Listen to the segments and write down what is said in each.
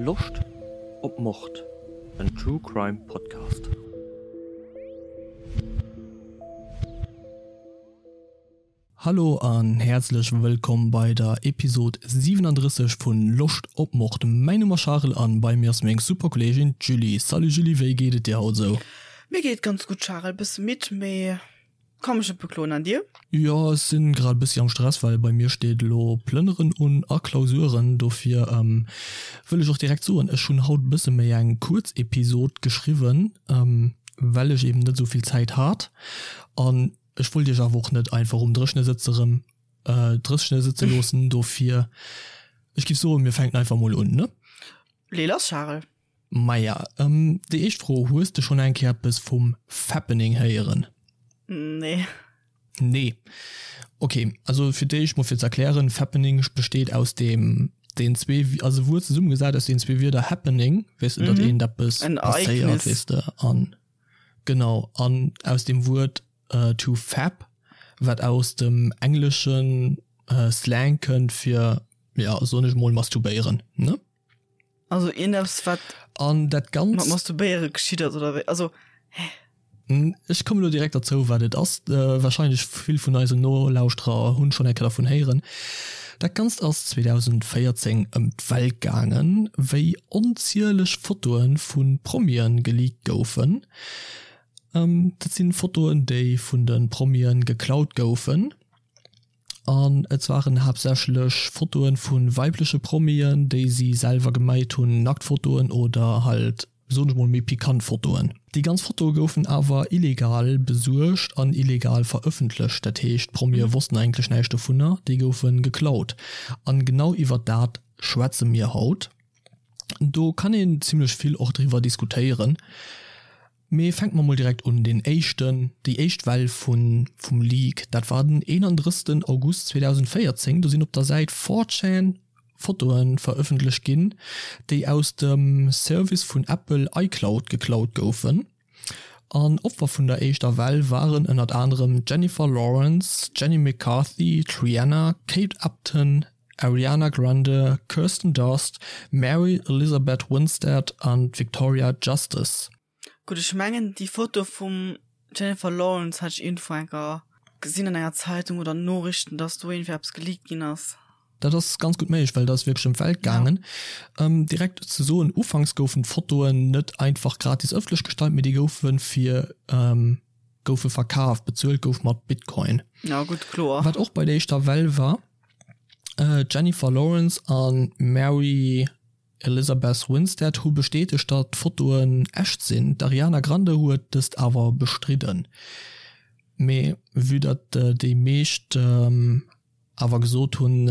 Loscht op Mord? En True Crime Podcast. Hallo an häerzlech wëllkomm bei der Episode 37 vun Loscht op Mord. Mäin Numm ass Charel an bei mir ass meng super Kolleegin d'Julie. Salut Julie, wéi geet et dir haut esou? Mir geet ganz gutt Charel, bësse midd mee Ka mech net bekloen, an dir? Jo, ech sinn grad e bëssi am Stress, well bei mir steet elo Plënneren un a Klausuren. Dofir wëll ech och direkt soen, ech hunn haut e bësse méi eng kuerz Episod geschriwwen, well ech eben net esou vill Zäit hat. An ech wollt iech awer och net einfach um Dréchne sëtze rëm dréchne sëtze loossen. Dofir, ech giff soen, mir fänken einfach mol un, ne? Lee lass, Charel. Maja, déi éischt Fro, Hues de schonn eng Kéier eppes vum Fappening héieren? Nee. Nee. Ok, also fir d'éischt mol fir ze erklären, Fappening besteet aus deem, den zwee, also e Wuert zesummegesat aus den zwee Wierder happening, weess de, datt eent eppes passéiert, weess de, an genau, an aus dem Wuert to fap, wat aus dem engleschen Slang kënnt fir, ja, soen ech mol, masturbéieren, ne? Also iergendeppes wat An dat Ganzt. Mat Masturbéiere geschitt ass oder wéi? Also, hä? Ech kommen elo direkt derzou wat et ass. Wahrscheinlech vill vun eisen Nolauschterer hunn schonn eng Kéier dervun héieren. Dat Ganzt ass 2014 ëm d'Welt gaangen, wéi onzieleg Fotoe vu Promien geleakt goufen. Dat sinn Fotoen déi vun de Promien geklaut goufen. An et waren haaptsächlech Fotoen vu weibleche Promien, déi si selwer geméit hunn, Nacktfotoen oder halt, soen ech mol, méi pikant Fotoen. Déi ganz Fotoe goufen awer illegal besuergt an illegal verëffentlecht, dat heescht d'Promie wossten eigentlech näischt dovunner, déi goufe geklaut. An genau iwwer dat schwätze mir haut. Do kann een zimmlech vill och driwwer diskutéieren. Mee fänke mer mol direkt un, deen éischten, déi éischt Well vun, vum Leak, dat war den 31 August 2014, do sinn op der Säit 4chan Fotoe verëffentlecht ginn, déi aus dem Service vun Apple iCloud geklaut goufen. An Opfer vun der éischter Well waren ënnert anerem d'Jennifer Lawrence, Jenny McCarthy, d'Rihanna, Kate Upton, Ariana Grande, Kirsten Dunst, Mary Elizabeth Winstead an d'Victoria Justice. Gutt, ech mengen déi Foto vum Jennifer Lawrence hat ech iergendwou enker gesinn an enger Zeitung oder Noriichten, dass do iergendwéi eppes geleakt ginn ass. Dat ass ganz gutt méiglech, well dat ass wierklech ëm d'Welt gaangen. Direkt ze soen, ufanks goufen d'Fotoen net einfach gratis ëffentlech gestallt, mee déi goufe fir goufe verkaf, bezuelt gouf mat Bitcoin. Ja gutt, kloer. Wat och bei der éischter Well war, D'Jennifer Lawrence a Mary Elizabeth Winstead hu bestätegt, datt d'Fotoen echt sinn. D'Ariana Grande huet dëst awer bestridden. Mee vue datt déi meescht awer gesot hunn,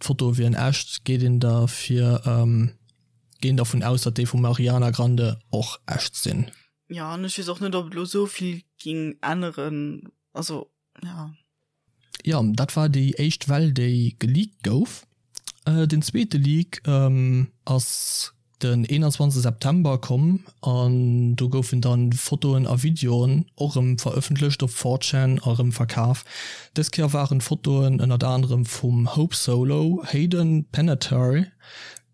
d'Fotoe wieren echt, geet een derfir geet een dervun aus, datt déi vum Ariana Grande och echt sinn. Jo, an ech weess och net, ob et elo esou vill géing änneren. Also, jo. Jo, dat war déi éischt Well déi geleakt gouf. Den zweete Leak ass den 21 September komm an do goufen dann Fotoen a Videoen och erëm verëffentlecht op 4chan a erëm verkaf. Dës Kéier waren d'Fotoen ënnert anerem vum Hope Solo, Hayden Panettiere,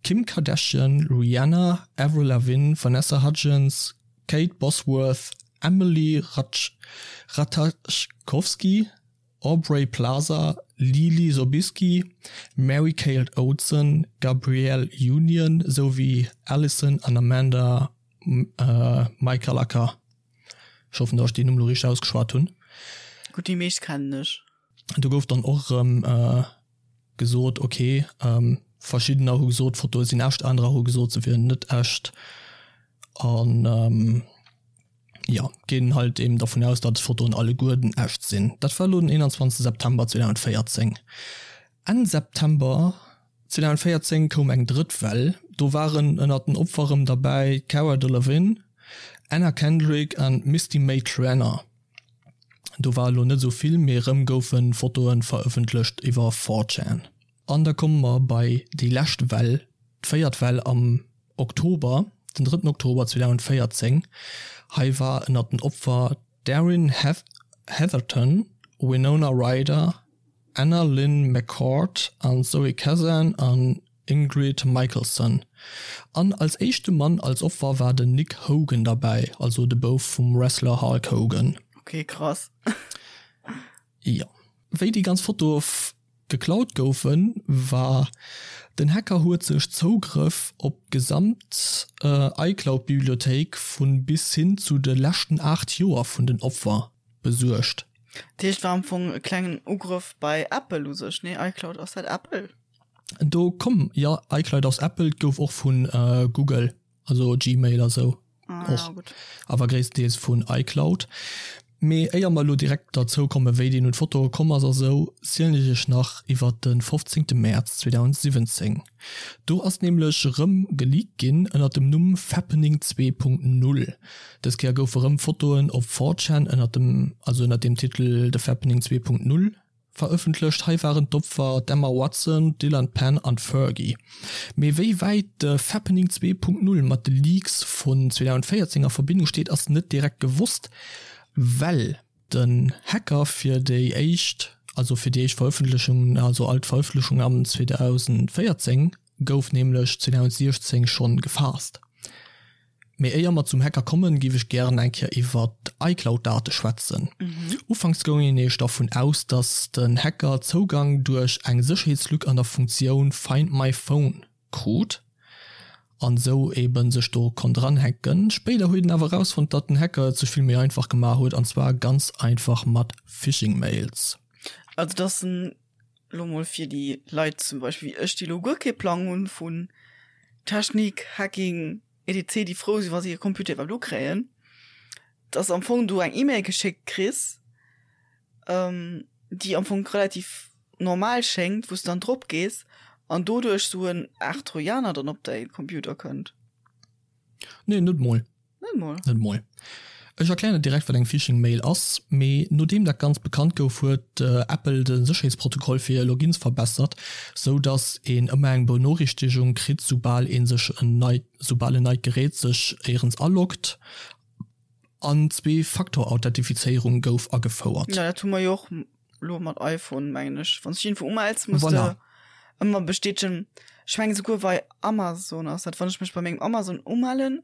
Kim Kardashian, Rihanna, Avril Lavigne, Vanessa Hudgens, Kate Bosworth, Emily Ratajkowski, Aubrey Plaza, Leelee Sobieski, Mary-Kate Olsen, Gabrielle Union souwéi Alison an Amanda Michalaka. Ech hoffen, datt ech déi Numm elo richteg ausgeschwat hunn. Gutt, déi meescht kennen ech. Do gouf dann och erëm gesot, ok, verschiddener hu gesot, d'Fotoe sinn echt, anerer hu gesot, se wieren net echt. An jo, ginn halt eben dervun aus, datt d'Fotoen alleguerten echt sinn. Dat war elo den 21 September 2014. Enn September 2014 koum eng drëtt Well, do waren ënnert den Opfer erëm derbäi d'Cara Delevingne, Anna Kendrick an d'Misty May-Treanor. Do war elo net esou vill, mee erëm goufe Fotoe verëffentlecht iwwer 4chan. An da komme mer bei déi lescht Well, d'véiert Well am Oktober, den drëtten Oktober 2014. Hei war ënnert den Opfer d'Erin Heatherton, Winona Ryder, Anna Lynn McCord an Zoe Kazan an. Ingrid Michaelson. An als éischte Mann als Opfer war den Nick Hogan derbäi, also de Bouf vum Wrestler Hulk Hogan. Ok, krass. Jo. Wéi déi ganz Fotoe geklaut goufen, war den Hacker huet sech Zougrëff op d'gesamt iCloud-Bibliothéik vu bis hin zu de leschten 8 Joer vun den Opfer besuergt. Dat heescht, war am Fong e klengen Ugrëff bei Apple u sech, nee? iCloud, ass dat Apple? Do komm, jo, iCloud ass Apple, et gouf och vu Google, also Gmail a sou och, awer gréisstendeels vun iCloud. Mee éier mer elo direkt derzou kommen, wéi deen un d'Fotoe komm ass a sou, zielen ech iech nach iwwert de 15 Mäerz 2017. Do ass nämlech erëm geleakt ginn ënnert dem Numm Fappening 2.0. Dës Kéier goufe rëm Fotoen op 4chan ënnert dem, also ënnert dem Titel The Fappening 2.0 Verëffentlecht. Hei waren d'Opfer d'Emma Watson, d'Dylan Penn an d'Fergie. Mee wéi wäit de Fappening 2.0 mat de Leaks vun 2014 a Verbindung steet, ass net direkt gewosst, well den Hacker fir déi éischt, also fir déi éischt Verëffentlechung, also all d'Verëffentlechung am 2014 gouf nämlech 2016 schonn gefaasst. Mee éier mer zum Hacker kommen, géif ech gären eng Kéier iwwer d'iCloud-Date schwätzen. Ufanks goung een nämlech dervun aus, dass den Hacker Zougang duerch eng Sécherheetslück an der Funktioun Find my phone krut an esou eben sech do konnt eranhacken. Spéider huet een awer erausfonnt, datt den Hacker et sech vill méi einfach gemaach huet, an zwar ganz einfach mat Phishing-Mails. Also dass en lo mol fir déi Leit zum Beispill wéi ech, déi lo guer kee Plang hunn vun Technik, Hacking, etc, déi frou sinn, wa se hir Computer iwwerhaapt ukréien, dass am Fong du eng E-Mail geschéckt kriss, déi am Fong relativ normal schéngt, wou s du dann drop gees an doduerch sou en Aart Trojaner dann op däi Computer kënnt. Nee, net mol. Net mol. Net mol. Ech erklären net direkt wat eng Phishing Mail ass, mee nodeem dat Ganzt bekannt gouf huet Apple de Sécherheetsprotokoll fir Logins verbessert, sou dass een ëmmer eng Benoriichtegung kritt soubal een sech en neit soubal en neit Gerät sech éierens aloggt an Zwee-Faktor-Authentifizéierung gouf agefouert. Jo dat hu mer jo och lo mat iPhone mengen ech. Wann s du iergendwou umells muss de ëmmer bestätegen. Ech mengen souguer bei Amazon ass dat, wann ech mech bei mengem Amazon umellen,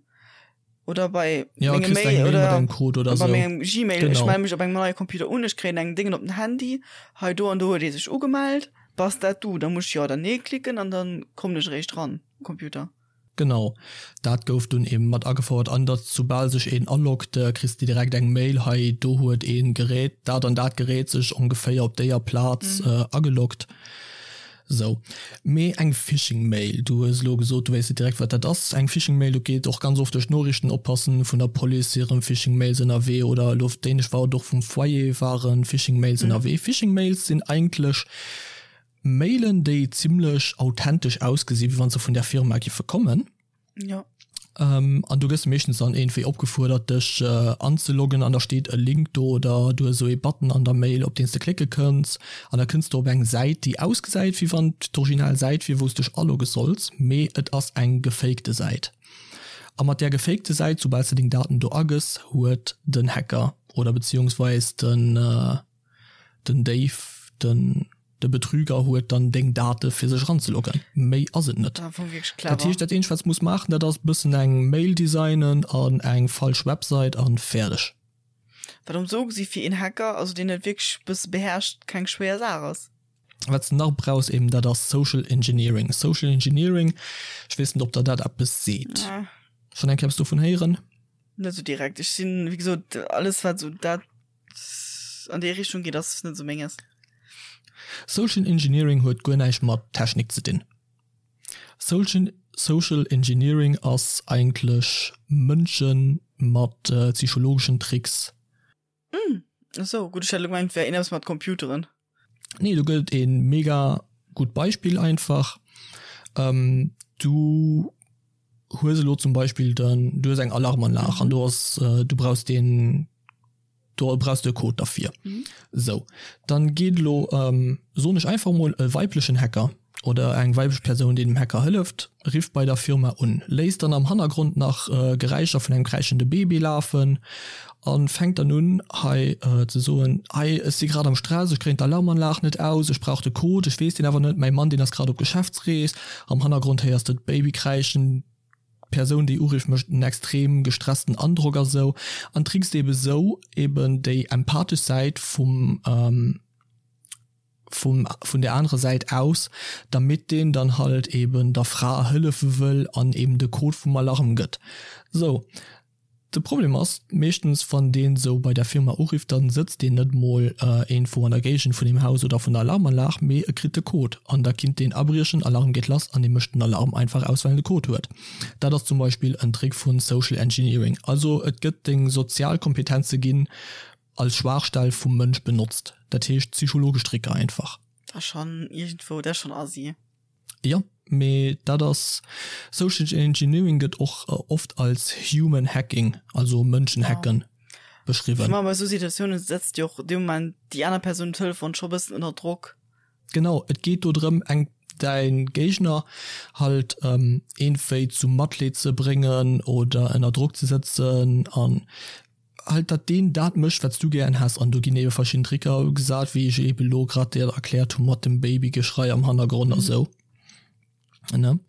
oder bei ja, mengem Mail oder, oder Code oder bei so. mengem Gmail genau. ech melde mech op engem neie Computer un ech kréien eng Dingen op den Handy hei do an do huet ee sech ugemellt bass dat du da muss ech jo oder nee klicken an dann kommen ech eréischt ran Computer Genau, dat gouf dunn eben mat agefouert an datt soubal sech een aloggt, kriss de direkt eng Mail, hei do huet een Gerät, dat an dat Gerät sech ongeféier op déier Plaz ageloggt. Sou, mee eng Phishing-Mail, du hues elo gesot, du wéisst net direkt, wat dat ass. Eng Phishing-Mail, do geet och ganz oft duerch d'Noriichten, oppassen, vun der Police hire Phishing-Mails ënnerwee oder elo op Dänesch war et och vum Foyer ware Phishing-Mails ënnerwee. Phishing-Mails sinn eigentlech Mailen, déi zimlech authentesch ausgesinn, wéi wa se vun där Firma giffe kommen. Ja. Ähm, an du gëss meeschtens dann iergendwéi opgefuerdert dech äh, anzeloggen an da steet e Link do oder du hues esou ee Button an der Mail, op deen s de klicke kënns an da kënns du op eng Säit, déi ausgesäit wéi wann et d'original Säit wier, wou s dech alogge solls, mee et ass eng gefakte Säit. A mat där gefakte Säit, soubal s de deng Daten do agëss, huet den Hacker oder beziehungsweis den, äh, den Déif, den. De Betrüger huet dann deng Date fir sech eranzeloggen. Méi ass et net. Dat heescht, dat eenzegt wat s muss maachen, dat ass bëssen eng Mail designen an eng falsch Website an fäerdeg. Wat am sou gesi fir een Hacker, also deen et wierklech bësse beherrscht, keng schwéier Saach ass. Wat s de nach brauchs eben, dat ass Social Engineering. Social Engineering, ech weess net ob der dat eppes seet. Schonn eng Kéier eppes dovun héieren? Net sou direkt. Ech sinn, wéi gesot, alles wat sou dat An déi Richtung geet ass net sou menges. Social Engineering huet guer näischt mat Technik ze dinn. Social Engineering ass eigentlech Mënsche mat psychologeschen Tricks. Hm, esou, gutt, ech hat elo gemengt et wär een eppes mat Computeren. Nee, do gëtt et ee mega gutt Beispill einfach. Du hues elo zum Beispill den, du hues eng Alarmanlag an do ass, du brauchs deen, do brauchs de e Code derfir. Sou, dann geet elo, soen ech einfach mol, e weiblechen Hacker. oder eng weiblech Persoun, déi dem Hacker hëlleft, rifft bei der Firma un, léisst dann am Hannergrond nach Geräischer vun engem kräischende Baby lafen a fänkt dann un hei ze soen, Hei, ech si grad am Stress, ech kréien d'Alarmanlag net aus, ech brauch de Code, ech weess deen awer net, mäi Mann, deen ass grad op Geschäftsrees. Am Hannergrond héiers de d'Baby kräischen, d'Persoun, déi urifft, mécht en extrem gestressten Androck a sou an trickst ebe sou eben déi empathesch Säit vum. vum vun der anerer Säit aus, damit deen dann halt eben der Fra hëllefe wëll an eben de Code vum Alarm gëtt. Sou, de Problem ass meeschtens wann deen sou bei der Firma urifft, dann sëtzt deen net mol iergendwou an der Géigend vun deem Haus oder vun der Alarmanlag, mee e kritt de Code an da kinnt deen abriechen, Alarm geet lass an dee mécht den Alarm einfach aus well en de Code huet. Dat ass zum Beispill en Trick vun Social Engineering. Also et gëtt deng sozial Kompetenze ginn als Schwaachstell vum Mënsch benotzt, dat heescht psychologesch Tricker einfach. Dat ass schonn iergendwou, dat ass schonn assi. Jo, mee dat ass, Social Engineering gëtt och oft als Human Hacking, also Mënschenhacken, beschriwwen. Ech mengen, bei esou Situatiounen setzt jo och dee Moment déi aner Persoun um Telefon scho bëssen ënner Drock. Genau, et geet do drëm eng däin Géigner halt iergendwéi zum Matleed ze bréngen oder ënner Drock ze sëtzen an halt dat deen dat mécht wat s du gären häss an do ginn ebe verschidden Tricker gesat wéi ech ebe lo grad dir erkläert hu mat dem Babygeschrei am Hannergrond a sou ne.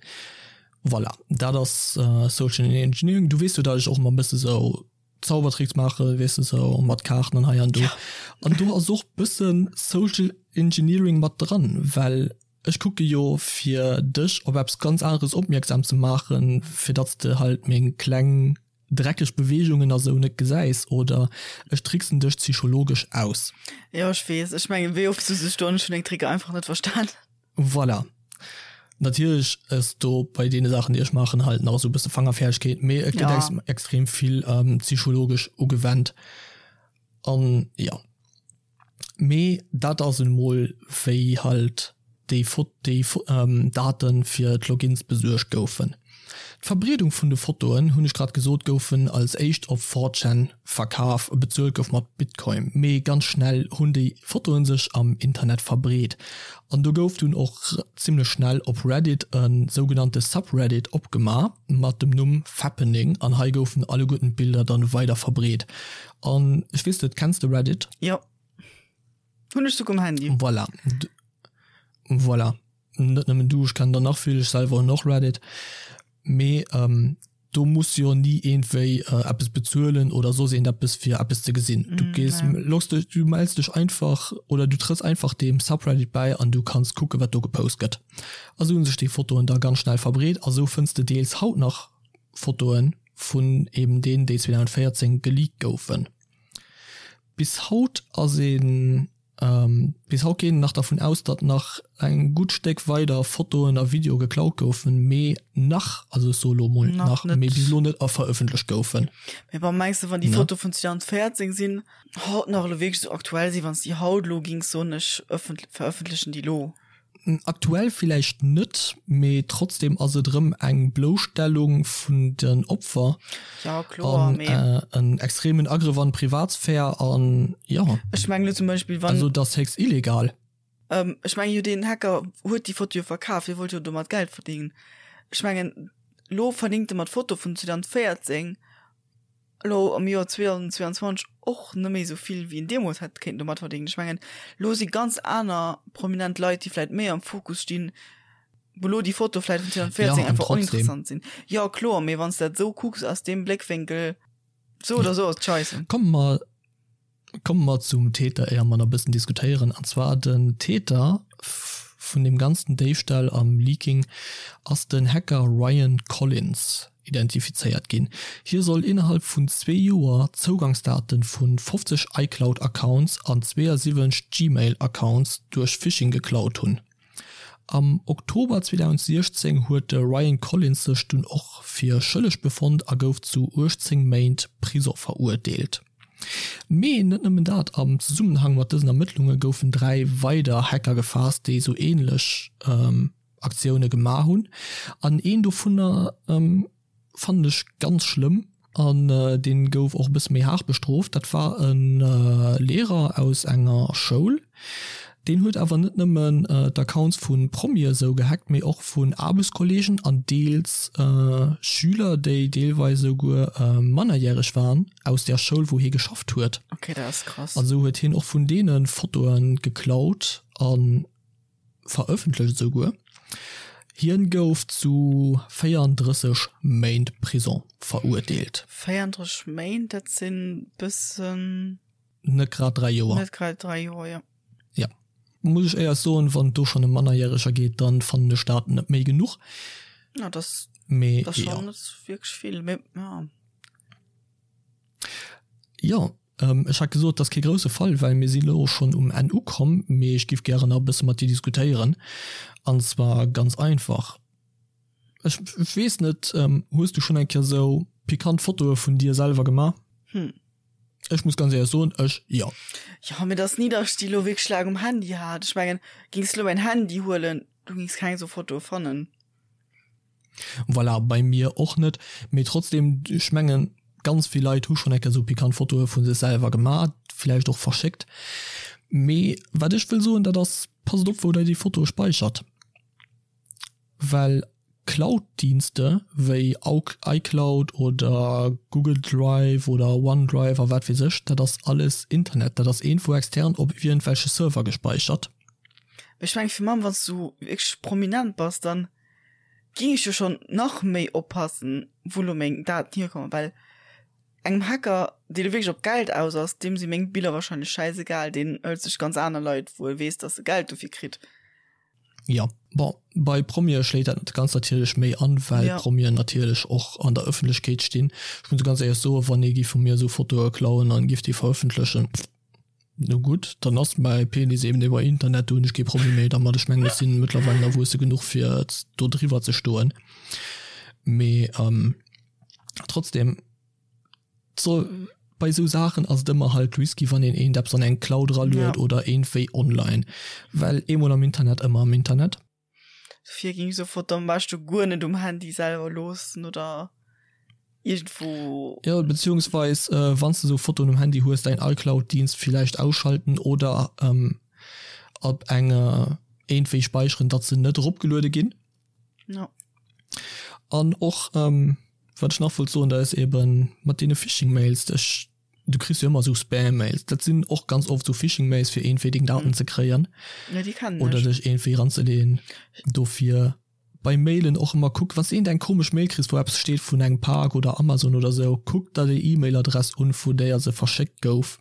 Voilà, dat ass Social Engineering. Du weess jo dat ech och ëmmer e bësse sou Zaubertricks maache weess de sou mat Kaarten an hei an do. An do ass och bësse Social Engineering mat dran, well ech kucke jo fir dech op eppes ganz aneres opmierksam ze maachen, fir datt s de halt meng kleng dreckeg Beweegungen a sou net gesäis oder ech tricksen dech psychologesch aus. Jo, ech weess. Ech mengen, wéi oft sot ech do, ech hunn deng Tricker einfach net verstan. Voilà. Natierlech ass do bei deene Saachen, déi ech maachen, halt nach esou e bësse Fangerfäerdegkeet, mee et gëtt ex extrem vill psychologesch ugewennt an jo. Mee dat ass en mol wéi halt déi déi Daten fir d'Logins besuergt goufen. D'Verbreedung vun de Fotoen, hunn ech grad gesot, goufen als éischt op 4chan verkaf, bezuelt gouf mat Bitcoin. Mee ganz schnell hunn déi Fotoen sech am Internet verbreet an do gouf dunn och zimmlech schnell op Reddit e sougenannte Subreddit opgema mat dem Numm Fappening an hei goufen alleguerten d'Bilder dann weider verbreet. An ech weess net, kenns de Reddit? Jo. Hunn ech souguer um Handy. Voilà. Voilà. Net nëmmen du, ech kennen der nach vill, ech selwer hunn och Reddit. Mee ähm, do muss jo ni iergendwéi äh, eppes bezuelen oder soss iergendeppes fir eppes ze gesinn. Du gees, mm, loggs dech, du mells dech einfach oder du trëss einfach deem Subreddit bäi an du kanns kucke wat do gepost gëtt. A sou hunn sech déi Fotoen da ganz schnell verbreet a sou fënns de deels haut nach Fotoen vun eben deenen, déi 2014 geleakt goufen. Bis haut ass een, bis haut geet een nach dervun aus, datt nach eng gutt Stéck weider Fotoen a Videoe geklaut goufen, mee nach, also ech soe lo mol nach, mee bis elo net verëffentlecht goufen. Mee bon, mengs de, wann déi Fotoe vun 2014 sinn, haut nach elo wierklech esou aktuell sinn, wann s déi haut elo gings soen, ech verëffentlechen déi elo? Aktuell villäicht net, mee trotzdem ass et erëm eng Blousstellung vun den Opfer ja, kloer, an äh, en extremen Agrëff an d'Privatsphär an ja. Ech mengen zum Beispill wann also dat ass héchst illegal. Ähm, ech mengen jo deen Hacker huet déi Foto jo verkaf, hie wollt jo domat Geld verdéngen. Ech mengen lo verdéngt e mat Foto vun 2014 elo am Joer 2022 och net méi esou vill wéi en deemools hätt kéinten domat verdéngen. Ech mengen, elo si ganz aner prominent Leit, déi vläit méi am Fokus stinn, wou elo déi Foto vläit vun 2014 ja, einfach oninteressant sinn. Jo, kloer, mee wann s de dat esou kucks aus deem Bléckwénkel, sou oder sou ass et scheisse. Komme mer Komme mer zum Täter, éier mer nach e bëssen diskutéieren. An zwar den Täter vun deem ganzen Déifstall am Leaking ass den Hacker Ryan Collins identifizéiert ginn. Hie soll innerhalb vun zwee Joer d'Zougangsdate vu 50 iCloud-Accounts an 72 Gmail-Accounts duerch Phishing geklaut hunn. Am Oktober 2016 huet de Ryan Collins sech dunn och fir schëlleg befonnt a gouf zu 18 Méint Prisong verurteelt. Mee net nëmmen dat, am Zesummenhang mat dësen Ermëttlunge goufen 3 weider Hacker gefaasst, déi esou änlech Aktioune gemaach hunn an een dovunner fannen ech ganz schlëmm an deen gouf och e bësse méi haart bestrooft. Dat war e Lehrer aus enger Schoul. Deen huet awer net nëmmen d'Accounts vu Promie esou gehackt, mee och vun Aarbechtskolleegen an deels Schüler, déi deelweis esouguer mannerjäreg waren, aus der Schoul, wou hie geschafft huet. Okay, dat ass krass. An esou huet hien och vun deene Fotoe geklaut a verëffentlecht esouguer. Hien gouf zu 34 Méint Prison verurteelt. 34 Méint, dat sinn bëssen. Net grad 3 Joer. Net grad 3 Joer, jo. Jo. Muss ech éiers soen, wann et do schonn ëm Mannerjäreger geet, dann fannen ech dat net méi genuch. Ja, dat Mee ass jo. schonn net wierklech vill, mee ja. Jo, ech hat gesot, et ass kee grousse Fall, well mir si lo schonn um Enn ukomm, mee ech giff gären nach e bësse mat dir diskutéieren. An zwar ganz einfach, ech weess net, hues du schonn eng Kéier sou pikant Fotoe vun dir selwer gemaach? Hm. Ech muss ganz éierlech soen, ech jo. Jo, mee et ass ni, datt ech déi elo wierklech laang um Handy hat. Ech mengen, gings de elo mäin Handy huelen, du gings keng esou Fotoe fannen. Voilà, bei mir och net. Mee trotzdem, ech mengen, ganz vill Leit hu schonn eng Kéier esou pikant Fotoe vu sech selwer gemaach, villäicht och verschéckt. Mee wat ech wëll soen, dat ass, passt op wou der déi Fotoe speichert. Well Cloud-Dienste wéi iCloud oder Google Drive oder OneDrive a wat weess ech, dat ass alles Internet, dat ass iergendwou extern op iergendwelche Server gespeichert. Mee ech mengen fir mam wanns du wierklech prominent bass, dann ging ech jo schon nach méi oppassen wou lo meng Daten hierkommen, well engem Hacker dee lo wierklech op Geld aus ass, deem si meng Biller wahrscheinlech schäisegal, deen hëlt sech ganz aner Leit wou e weess dass e Geld dofir kritt. Jo, bon, bei Promie schléit dat ganz natierlech méi an, well ja. Promien natierlech och an der Ëffentlechkeet stinn. Ech muss ganz éierlech soen, wann ee giff vu mir esou Fotoe klauen an giff déi verëffentlechen, no gutt, dann ass mäi Penis eben iwwer Internet, do hunn ech kee Problem méi dermat. Ech mengen, ech sinn mëttlerweil erwuesse genuch fir do driwwer ze stoen. Mee ähm, trotzdem. So, bei sou Saachen ass et ëmmer halt risky, wann een eent eppes an eng Cloud eraluet ja. oder eentwéi online. Well eemol am Internet, ëmmer am Internet. Dofir ging sou Foto am beschte guer net um Handy selwer loossen oder iergendwou. Ja, beziehungsweis äh, wann du sou Fotoen um Handy hues, däin iCloud-Dienst villäicht ausschalten oder ähm, op eng äh, eentwéi speicheren, datt se net eropgeluede ginn. Ja. An och ähm, wat ech nach wollt soen, dat ass eben mat deene Phishing-Mails, ech, du kriss jo ëmmer esou Spam-Mails, dat sinn och ganz oft esou Phishing-Mails fir iergendwéi deng Daten mhm. ze kréien. Ja, déi kennen Oder dech iergendwéi ranzeleeën. Dofir bei Mailen och ëmmer kuck, wann s de iergendeng komesch Mail kriss, wou eppes steet vun engem Pak oder Amazon oder esou, kuck der déi E-Mail-Adress un, vu déier se verschéckt gouf.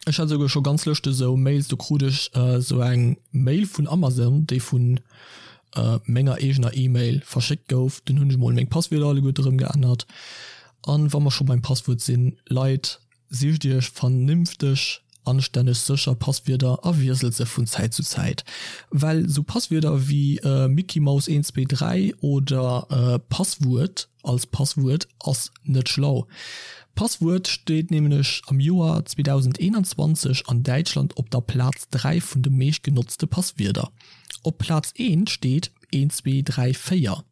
Ech hat esouguer scho ganz lëschteg esou Mails, do krut ech esou eng Mail vun Amazon, déi vun menger eegener E-Mail verschéckt gouf. Dunn hunn ech mol meng Passwierder alleguerte rëm geännert. An wa mer scho beim Passwuert sinn, Leit, sicht iech vernünfteg, anstänneg, sécher Passwierder a wiesselt se vun Zäit zu Zäit. Well esou Passwierder wéi Mickeymaus 1 2 3 oder Passwuert als Passwuert ass net schlau. Passwuert steet nämlech am Joer 2021 an Däitschland op der Plaz 3 vun de meescht genotzte Passwierder. Op Plaz 1 steet 1 2 3 4.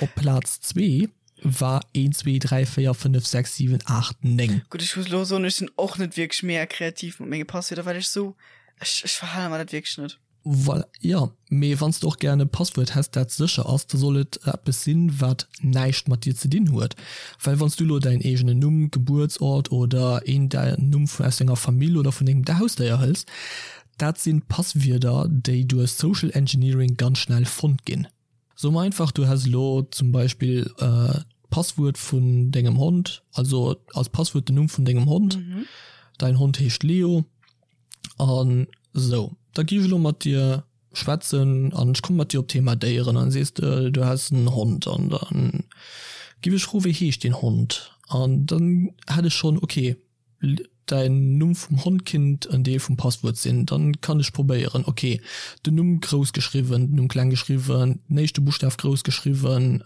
Op Plaz 2 war 1 2 3 4 5 6 7 8 9. Gutt, ech muss elo soen, ech sinn och net wierklech mega kreativ mat menge Passwierder, well ech sou, ech ech verhale mer dat wierklech net. Voilà, jo, mee wann s de och gären e Passwuert häss, dat sécher ass, da soll et eppes sinn, wat näischt mat dir ze dinn huet. Well wann s du elo däin eegenen Numm, Gebuertsort oder een däin Numm vun aus denger Famill oder vun dengem Hausdéier hëls, dat sinn Passwierder, déi duerch Social Engineering ganz schnell fonnt ginn. So mer einfach, du häss elo zum Beispill d'Passwuert vun dengem Hond, also als Passwuert den Numm vun dengem Hond, däin Hond heescht Leo an esou. Da gi ech elo mat dir schwätzen an ech komme mat dir op d'Thema Déieren an sees de, du häss en Hond an dann giff ech froen, wéi heescht deen Hond? An dann hätt ech schonn, okay, Däin Numm vum Hond kinnt en Deel vum Passwuert sinn. Dann kann ech probéieren, ok, den Numm grouss geschriwwen, den Numm kleng geschriwwen, den éischte Buschtaf grouss geschriwwen,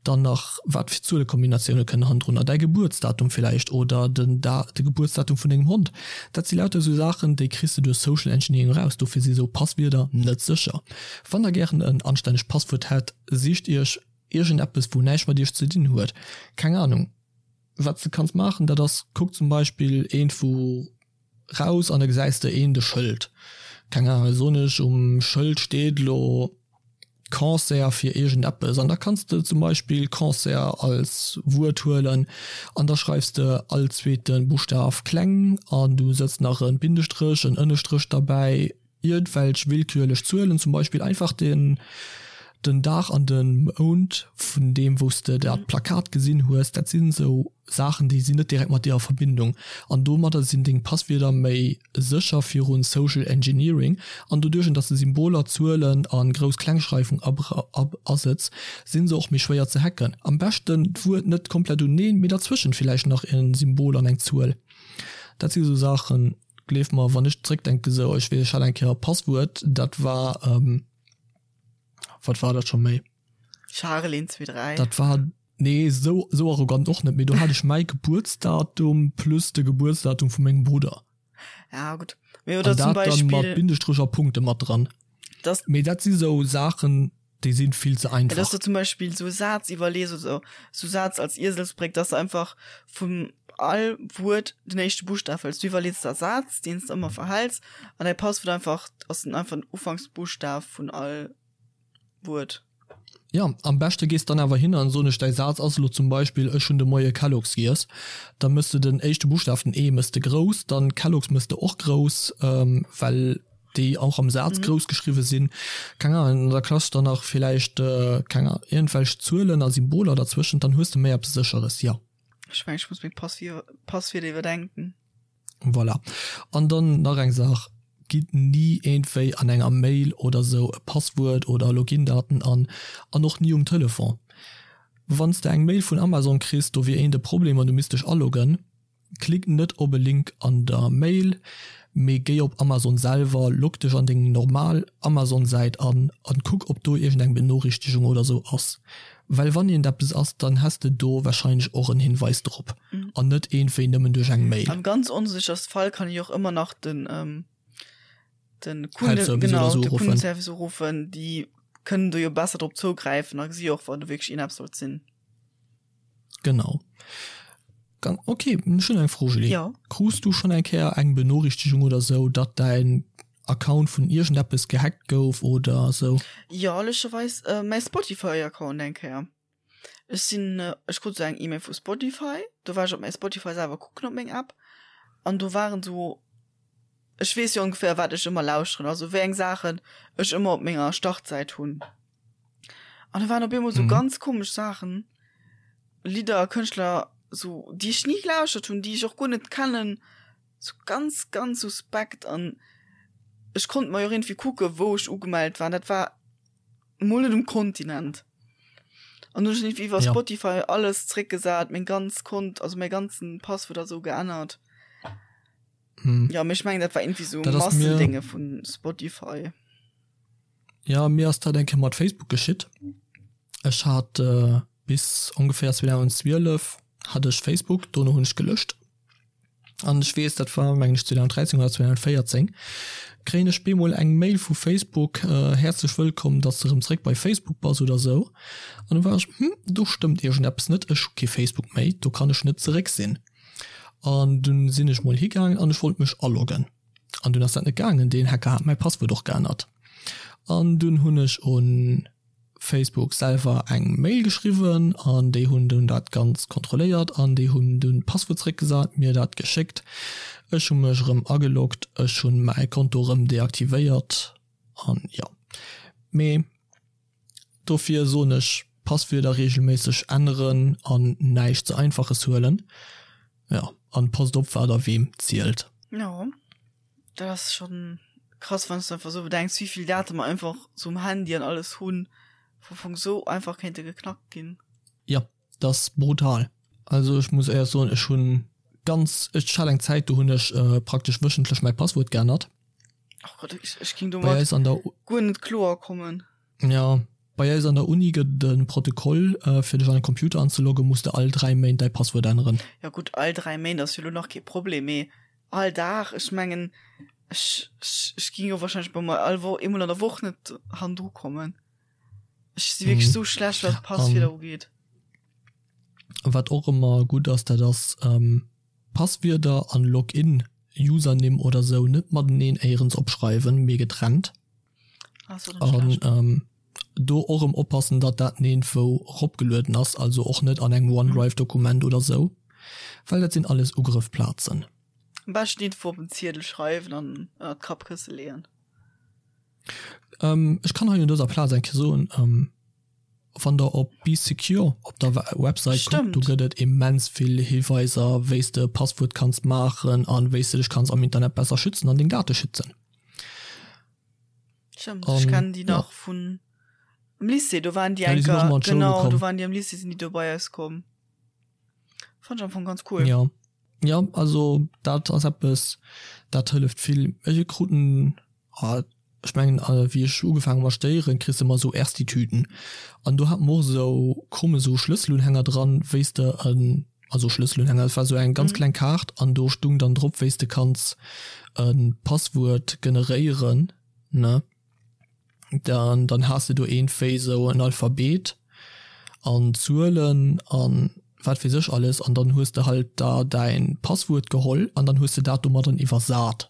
dann nach wat fir Zuelekombinatioune kënnen hannendrunner, däi Gebuertsdatum villäicht oder den de Gebuertsdatum vun dengem Hond. Dat si lauter esou Saachen, déi kriss de duerch Social Engineering eraus. Dofir si sou Passwierder net sécher. Wann der gären en anstännegt Passwuert hätt, sicht iech iergendeppes wou näischt mat iech ze dinn huet. Keng Anung. Wat s de kanns maachen, dat ass, kuck zum Beispill eent wou. raus an da gesäis de een de Schëld. Keng Ahnung, soen ech, um Schëld steet elo Cancer fir iergendeppes an da kanns de zum Beispill Cancer als Wuert huelen an da schreifs de all zweete Buschtaf kleng an du sëtz nach e Bindestréch, en Ënnestréch derbäi, iergendwelch willkürlech Zuelen, zum Beispill einfach den den Dag an de Mount vun deem wou s de dat Plakat gesinn hues. Dat sinn esou Saachen, déi sinn net direkt mat dir a Verbindung an domadder sinn deng Passwierder méi sécher virun Social Engineering an doduerch dass de Symboler, Zuelen a Grouss-Klengschreifung asëtz, sinn se och méi schwéier ze hacken. Am beschten d'Wuert net komplett uneen, mee derzwëschent villäicht nach en Symbol an eng Zuel. Dat si sou Saachen, gleef mer, wann ech zréckdenken, sou ech weess ech hat eng Kéier e Passwuert, dat war, wat war dat scho méi? Charel 1 2 3. Dat war Nee, sou, sou arrogant och net, mee do hat ech mäi Gebuertsdatum plus de Gebuertsdatum vu mengem Brudder. Ja, gutt. Mee oder zum Beispill. An dat dann mat Bindestréch a Punkte mat dran. Dass. Mee dat si sou Saachen, déi si vill ze einfach. Dass du zum Beispill sou e Saz iwwerlees oder sou Saz als Ieselsbréck, dass du einfach vun all Wuert den éischte Buschtaf hëls. Du iwwerlees der e Saz, deen s de ëmmer verhäls, an däi Passwuert einfach ass dann einfach den Ufanksbuschtaf vun all Wuert. Jo, am beschte gees dann awer hin an soen ech, däi Saz ass elo zum Beispill, ech hunn de Moie Kellogg's giess, da mëss de den éischte Buschtaf, den E, mëss de grouss, dann Kellogg's mëss de och grouss, well déi och am Saz grouss geschriwwe sinn, keng Ahnung, an da klaschs der nach villäicht, keng Ahnung, iergendwelch Zuelen a Symboler derzwëschent, dann hues de méi eppes Sécheres, jo. Ech mengen, ech muss meng Passwierder iwwerdenken. Voilà. An dann nach eng Saach, Gitt ni iergendwéi an enger Mail oder sou e Passwuert oder Login-Daten an, an och ni um Telefon. Wann s de eng Mail vun Amazon kriss, do wier eent e Problem an du misst dech aloggen, klick net op e Link an der Mail, mee géi op Amazon selwer, log dech an deng normal Amazon-Säit an an kuck ob do iergendeng Benoriichtegung oder sou ass. Well wann iergend eppes ass, dann häss de do wahrscheinlech och en Hinweis drop an net iergendwéi nëmmen duerch eng Mail. Am ganz onsécherste Fall kann ech och ëmmer nach den den Kunde, genau, de Kundenservice uruffen, déi kënnen do jo besser drop zougräifen a gesi och wann do wierklech iergendeppes sollt sinn. Genau. Dann, ok, ech hunn eng Fro, Julie. Jo. Krus du schonn eng Kéier eng Benoriichtegung oder sou, datt däin Account vun iergendeppes gehackt gouf oder sou? Jo, lëscherweis mäi Spotify-Account eng Kéier. Ech sinn, ech krut sou eng E-Mail vu Spotify, do war ech op mäi Spotify selwer kucken op meng App an do waren sou, ech weess jo ongeféier wat ech ëmmer lauschteren, also wéi eng Saachen ech ëmmer op menger Startsäit hunn. An do waren op eemol sou ganz komesch Saachen, Lidder, Kënschtler, sou déi ech ni gelauschtert hunn, déi ech och guer net kennen. Sou ganz ganz suspekt an ech konnt mer jo och iergendwéi kucke wou ech ugemellt war an dat war mol net um Kontinent. An hunn ech iergendwéi iwwer Spotify alles zréckgesat, meng ganz Kont, also mäi ganzen Passwuert a sou geännert. Jo, mee ech mengen dat war iergendwéi sou Massendénge vu Spotify. Jo, mir ass dat eng Kéier mat Facebook geschitt. Ech hat bis ongeféier 2012 hat ech Facebook, dono hunn ech gelöscht. An ech weess, dat war mengen ech 2013 oder 2014, kréien ech bemol eng Mail vu Facebook, Häerzlech wëllkomm, datt s de erëm zréck bei Facebook bass oder esou. An du war ech, hm, do stëmmt iergendeppes net, ech hu kee Facebook méi, do kann ech net zeréck sinn. An dunn sinn ech mol higaangen an ech wollt mech aloggen. An dunn ass dat net gaangen, deen Hacker hat mäi Passwuert och geännert. An dunn hunn ech un Facebook selwer eng Mail geschriwwen an déi hunn dunn dat Ganzt kontrolléiert an déi hunn dunn d'Passwuert zeréckgesat, mir dat geschéckt. Ech hu mech erëm ageloggt, ech hunn mäi Konto erëm deaktivéiert an jo. Mee dofir soen ech, Passwierder regelméisseg änneren an näischt ze einfaches huelen. Jo, an passt op wat der weem zielt. Jo. Dat ass schon krass wann s de einfach sou bedenks wéivill Date mer einfach sou um Handy an alles hunn, wou am Fong sou einfach kéinte geknackt ginn. Jo, dat ass brutal. Also ech muss éierlech soen, ech hunn ganz, ech hat eng Zäit do hunn ech praktesch wöchentlech mäi Passwuert geännert. Oh Gott, ech, ech ging domat guer net kloer kommen. Jo, bei eis an der Uni gëtt et e Protokoll, fir dech an e Computer anzeloggen, muss de all 3 Méint däi Passwuert änneren. Jo gutt, all 3 Méint ass jo lo nach kee Problem, mee All Dag? Ech mengen, ech, ech, ech ging jo wahrscheinlech bei mer all Woch, eemol an der Woch net hannendru kommen. Ech si wierklech sou schlecht, wat Passwierder ugeet. Wat och ëmmer gutt ass, dat ass Passwierder an Login. Usernimm oder sou net mateneen éierens opschreiwen, mee getrennt. An do och erëm oppassen, datt dat niergendwou eropgelueden ass, also och net an engem OneDrive-Dokument oder sou, well dat sinn alles Ugrëffplazen. Am beschten iergendwou op en Ziedel schreiwen an ënnert d'Kappkësse leeën. Ech kann hei un dëser Plaz eng Kéier soen, wann der op Bee Secure op der Website kuckt, do gëtt et immens vill Hiweiser, wéi s de e Passwuert kanns maachen an wéi s de dech kanns am Internet besser schützen an deng Date schützen. Stëmmt, ech kennen déi nach vun am Lycée, do waren déi eng Kéier, genau, do waren déi am Lycée, sinn déi do bei eis komm. Fand ech am Fong ganz cool. Jo, jo, also dat ass eppes, dat hëlleft vill. Ech krut en, ech mengen wéi ech ugefaangen hu mat studéieren, kriss de ëmmer esou Ersti-Tüten an do hat mer och esou krumm esou Schlësselunhänger dran, wéi s de en, also Schlësselunhänger, et war esou eng ganz kleng Kaart an do stung dann drop, wéi s de kanns e Passwuert generéieren, ne. Dann, dann has de do iergendwéi esou en Alphabet an Zuelen an wat weess ech alles an dann hues de halt da däin Passwuert geholl an dann hues de dat domadden iwwersat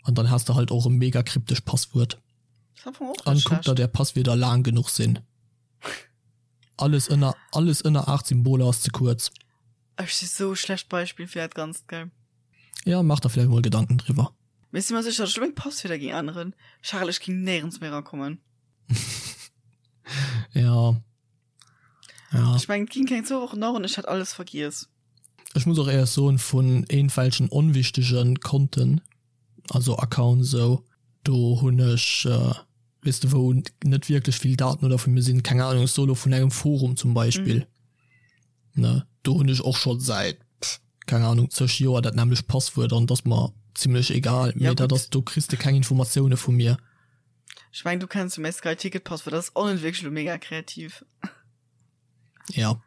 an dann has de halt och e mega kryptescht Passwuert. An kuckt datt är Passwierder laang genuch sinn. Alles ënner, alles ënner 8 Symboler ass ze kuerz. Ech si sou e schlecht Beispill fir dat Ganzt, gell? Jo, maach der vläicht mol Gedanken driwwer. Mee ech si mer sécher, datt ech lo meng Passwierder géing änneren. Charel, ech géing néierens méi erakommen. Jo. Ja. Ech mengen, et ginn keng zwou Wochen daueren, ech hätt alles vergiess. Ech muss och éierlech soen, vun iergendwelchen onwichtege Konten, also Accounts esou, do hunn ech, weess de, wou net wierklech vill Daten oder vu mir sinn, keng Ahnung, ech soe lo vun engem Forum zum Beispill, ne, do hunn ech och scho säit, keng Ahnung, zeg Joer dat nämmlecht Passwuert an et ass mer zimlech egal, mee dat ass, do kriss de keng Informatioune vu mir. Ech mengen, du kenns jo mäi Sky Ticket Passwuert, dat ass och net wierklech elo mega kreativ. Ja.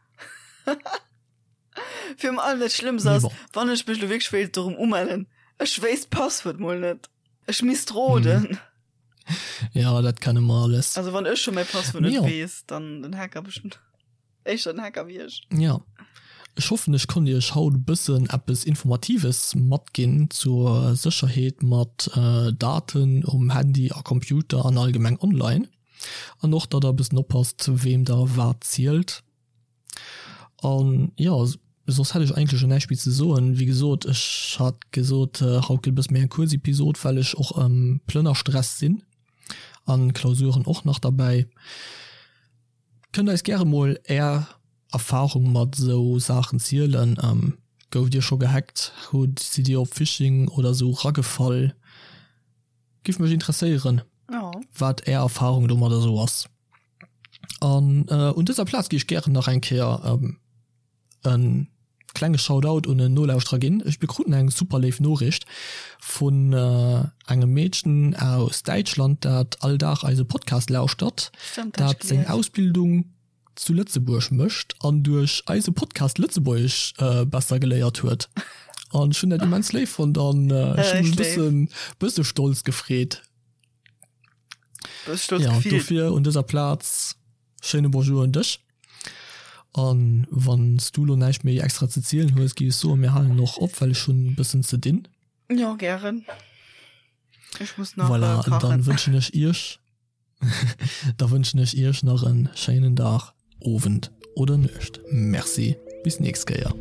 Virun allem dat Schlëmmst ass, wann ech mech lo wierklech wéilt dorëm umellen, ech wéisst d'Passwuert mol net. Ech misst roden. Mhm. Ja, dat kenne mer alles. Also wann ech scho mäi Passwuert net weess, dann den Hacker bestimmt. Éischter den Hacker wéi ech. Ja. Ech hoffen, ech konnt iech haut e bëssen eppes Informatives matginn zur Sécherheet mat Daten um Handy a Computer an allgemeng online. An och, datt der e bëssen oppasst, weem der wat zielt. An jo, soss hätt ech eigentlech elo näischt méi ze soen. Wéi gesot, ech hat gesot, haut gëtt e bësse méi eng kuerz Episod, well ech och am Plënnerstress sinn an Klausuren och nach derbäi. Kënnt eis gäre mol är Erfahrung mat esou Saachen zielen. Gouft dir scho gehackt? Hutt, sidd dir op Phishing oder esou ragefall? Giff mech interesséieren wat är Erfahrung domadder esou ass. An un dëser Plaz gi ech gären nach eng Kéier en klenge Shoutout un en Nolauschterer ginn. Ech bekruten eng super léif Noriicht vun engem Meedchen aus Däitschland, dat all Dag eise Podcast lauschtert, dat seng Ausbildung zu Lëtzebuerg mécht an duerch eise Podcast Lëtzebuergesch besser geléiert huet. An ech hunn dat immens léif fonnt an ech hunn mech e bëssen, bësse stolz gefreet. Ja, dofir un dëser Plaz Schéine Bonjour un dech. An wann s du lo näischt méi extra ze zielen hues, géif ech soen, mir halen och op, well ech hunn e bëssen ze dinn. Jo, gären. Ech muss nach voilà, kachen. Dann wënschen ech iech, da wënschen ech iech nach en schéinen Dag, Owend oder Nuecht. Merci, bis nächst Kéier.